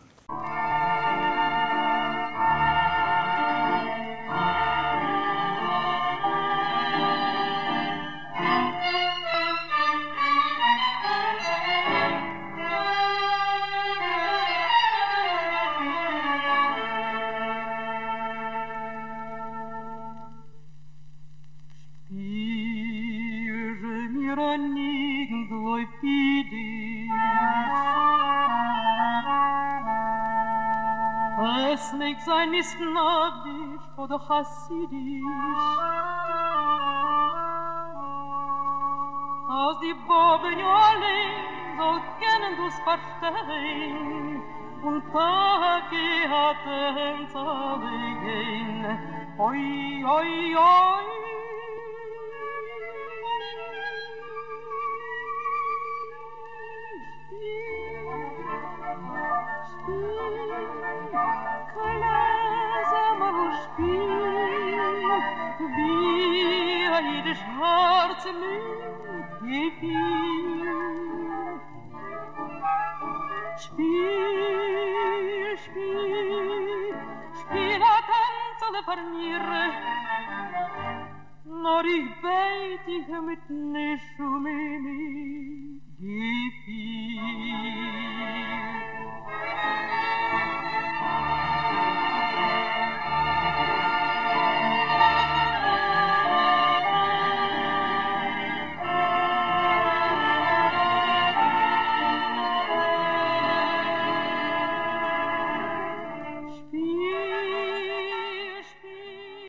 Sein misgnadisch oder chassidisch, aus die Boben allein soll kennen du's verstehen, und Tage hatten zerlegen, oi, oi, oi. Kalazam wie jedes Herz mit gefiel. Spiel, spiel, spiel a tanzele farniere, nor ich beit dich mit ne Schumini.